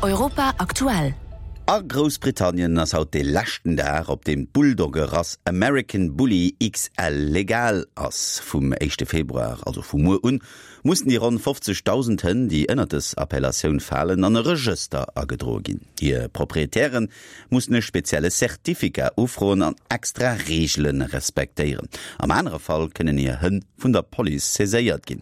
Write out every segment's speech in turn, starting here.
Europa aktuell. A Groussbritannien ass haut dee leschten Dag, op deem d'Bulldogge-Rass American Bully XL legal ass. Vum éischte Februar, also vu muer un, mussen déi ronn 50.000 Hënn, déi ënnert dës Appellatioun falen, an e Regëster agedroe ginn. Hir Proprietäre mussen e spezielle Certificat ufroen an extra Reegele respektéieren. Am anere Fall kënnen hir Hënn vun der Police saiséiert ginn.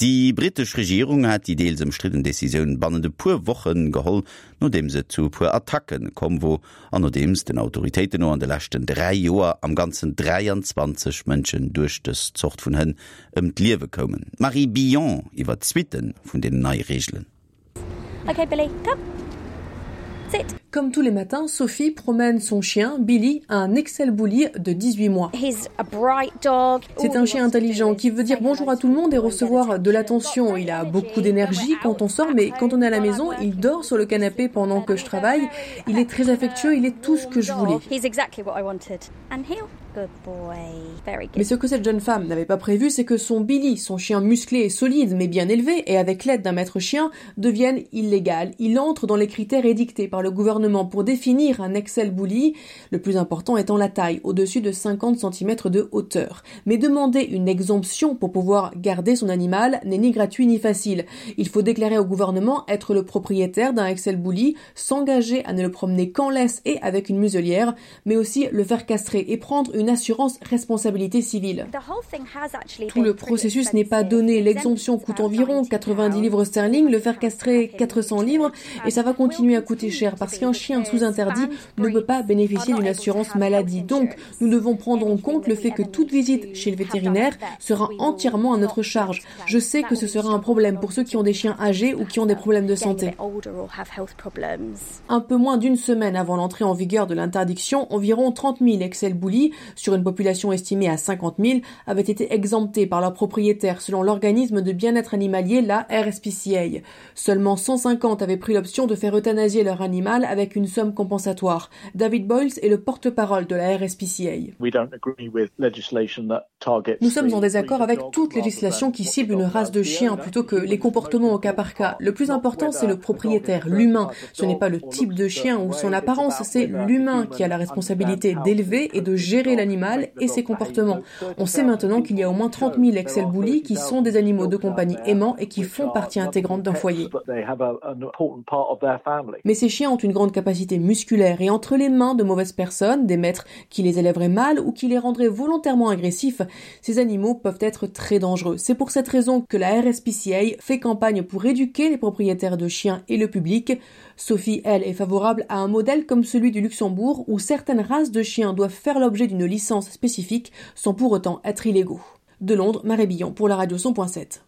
Déi brittesch Regierung hat déi deels ëmstridden Decisioun bannent e puer Woche geholl, nodeems et zu e puer Attacke komm wor an nodeems den Autoritéiten no an de leschten 3 Joer am Ganzen 23 Mënschen duerch dës Zort vun Hënn ëm d'Liewe koumen. D'Marie Billon iwwer d'Suitte vun deenen neie Reegelen. Okay, Billy, come. Sit. Comme tous les matins, Sophie promène son chien Billy, un Excel Bully de 18 mois. C'est un chien intelligent qui veut dire bonjour à tout le monde et recevoir de l'attention. Il a beaucoup d'énergie quand on sort, mais quand on est à la maison, il dort sur le canapé pendant que je travaille. Il est très affectueux, il est tout ce que je voulais. Mais ce que cette jeune femme n'avait pas prévu, c'est que son Billy, son chien musclé et solide mais bien élevé et avec l'aide d'un maître chien, devienne illégal. Il entre dans les critères édictés par le gouvernement pour définir un Excel Bully, le plus important étant la taille, au-dessus de 50 cm de hauteur. Mais demander une exemption pour pouvoir garder son animal n'est ni gratuit ni facile. Il faut déclarer au gouvernement être le propriétaire d'un Excel Bully, s'engager à ne le promener qu'en laisse et avec une muselière, mais aussi le faire castrer et prendre une assurance responsabilité civile. Tout le processus n'est pas donné. L'exemption coûte environ 90 livres sterling, le faire castrer 400 livres et ça va continuer à coûter cher parce qu'un chien sous interdit ne peut pas bénéficier d'une assurance maladie. Donc, nous devons prendre en compte le fait que toute visite chez le vétérinaire sera entièrement à notre charge. Je sais que ce sera un problème pour ceux qui ont des chiens âgés ou qui ont des problèmes de santé. Un peu moins d'une semaine avant l'entrée en vigueur de l'interdiction, environ 30 000 Excel Bully, sur une population estimée à 50 000, avaient été exemptés par leurs propriétaires selon l'organisme de bien-être animalier, la RSPCA. Seulement 150 avaient pris l'option de faire euthanasier leur animal avec une somme compensatoire. David Boyles est le porte-parole de la RSPCA. Nous sommes en désaccord avec toute législation qui cible une race de chien plutôt que les comportements au cas par cas. Le plus important, c'est le propriétaire, l'humain. Ce n'est pas le type de chien ou son apparence, c'est l'humain qui a la responsabilité d'élever et de gérer l'animal et ses comportements. On sait maintenant qu'il y a au moins 30 000 Excel Bully qui sont des animaux de compagnie aimants et qui font partie intégrante d'un foyer. Mais ces chiens ont une grande capacité musculaire et entre les mains de mauvaises personnes, des maîtres qui les élèveraient mal ou qui les rendraient volontairement agressifs, ces animaux peuvent être très dangereux. C'est pour cette raison que la RSPCA fait campagne pour éduquer les propriétaires de chiens et le public. Sophie, elle, est favorable à un modèle comme celui du Luxembourg où certaines races de chiens doivent faire l'objet d'une licence spécifique sans pour autant être illégaux. De Londres, Marie Billon pour la radio 100.7.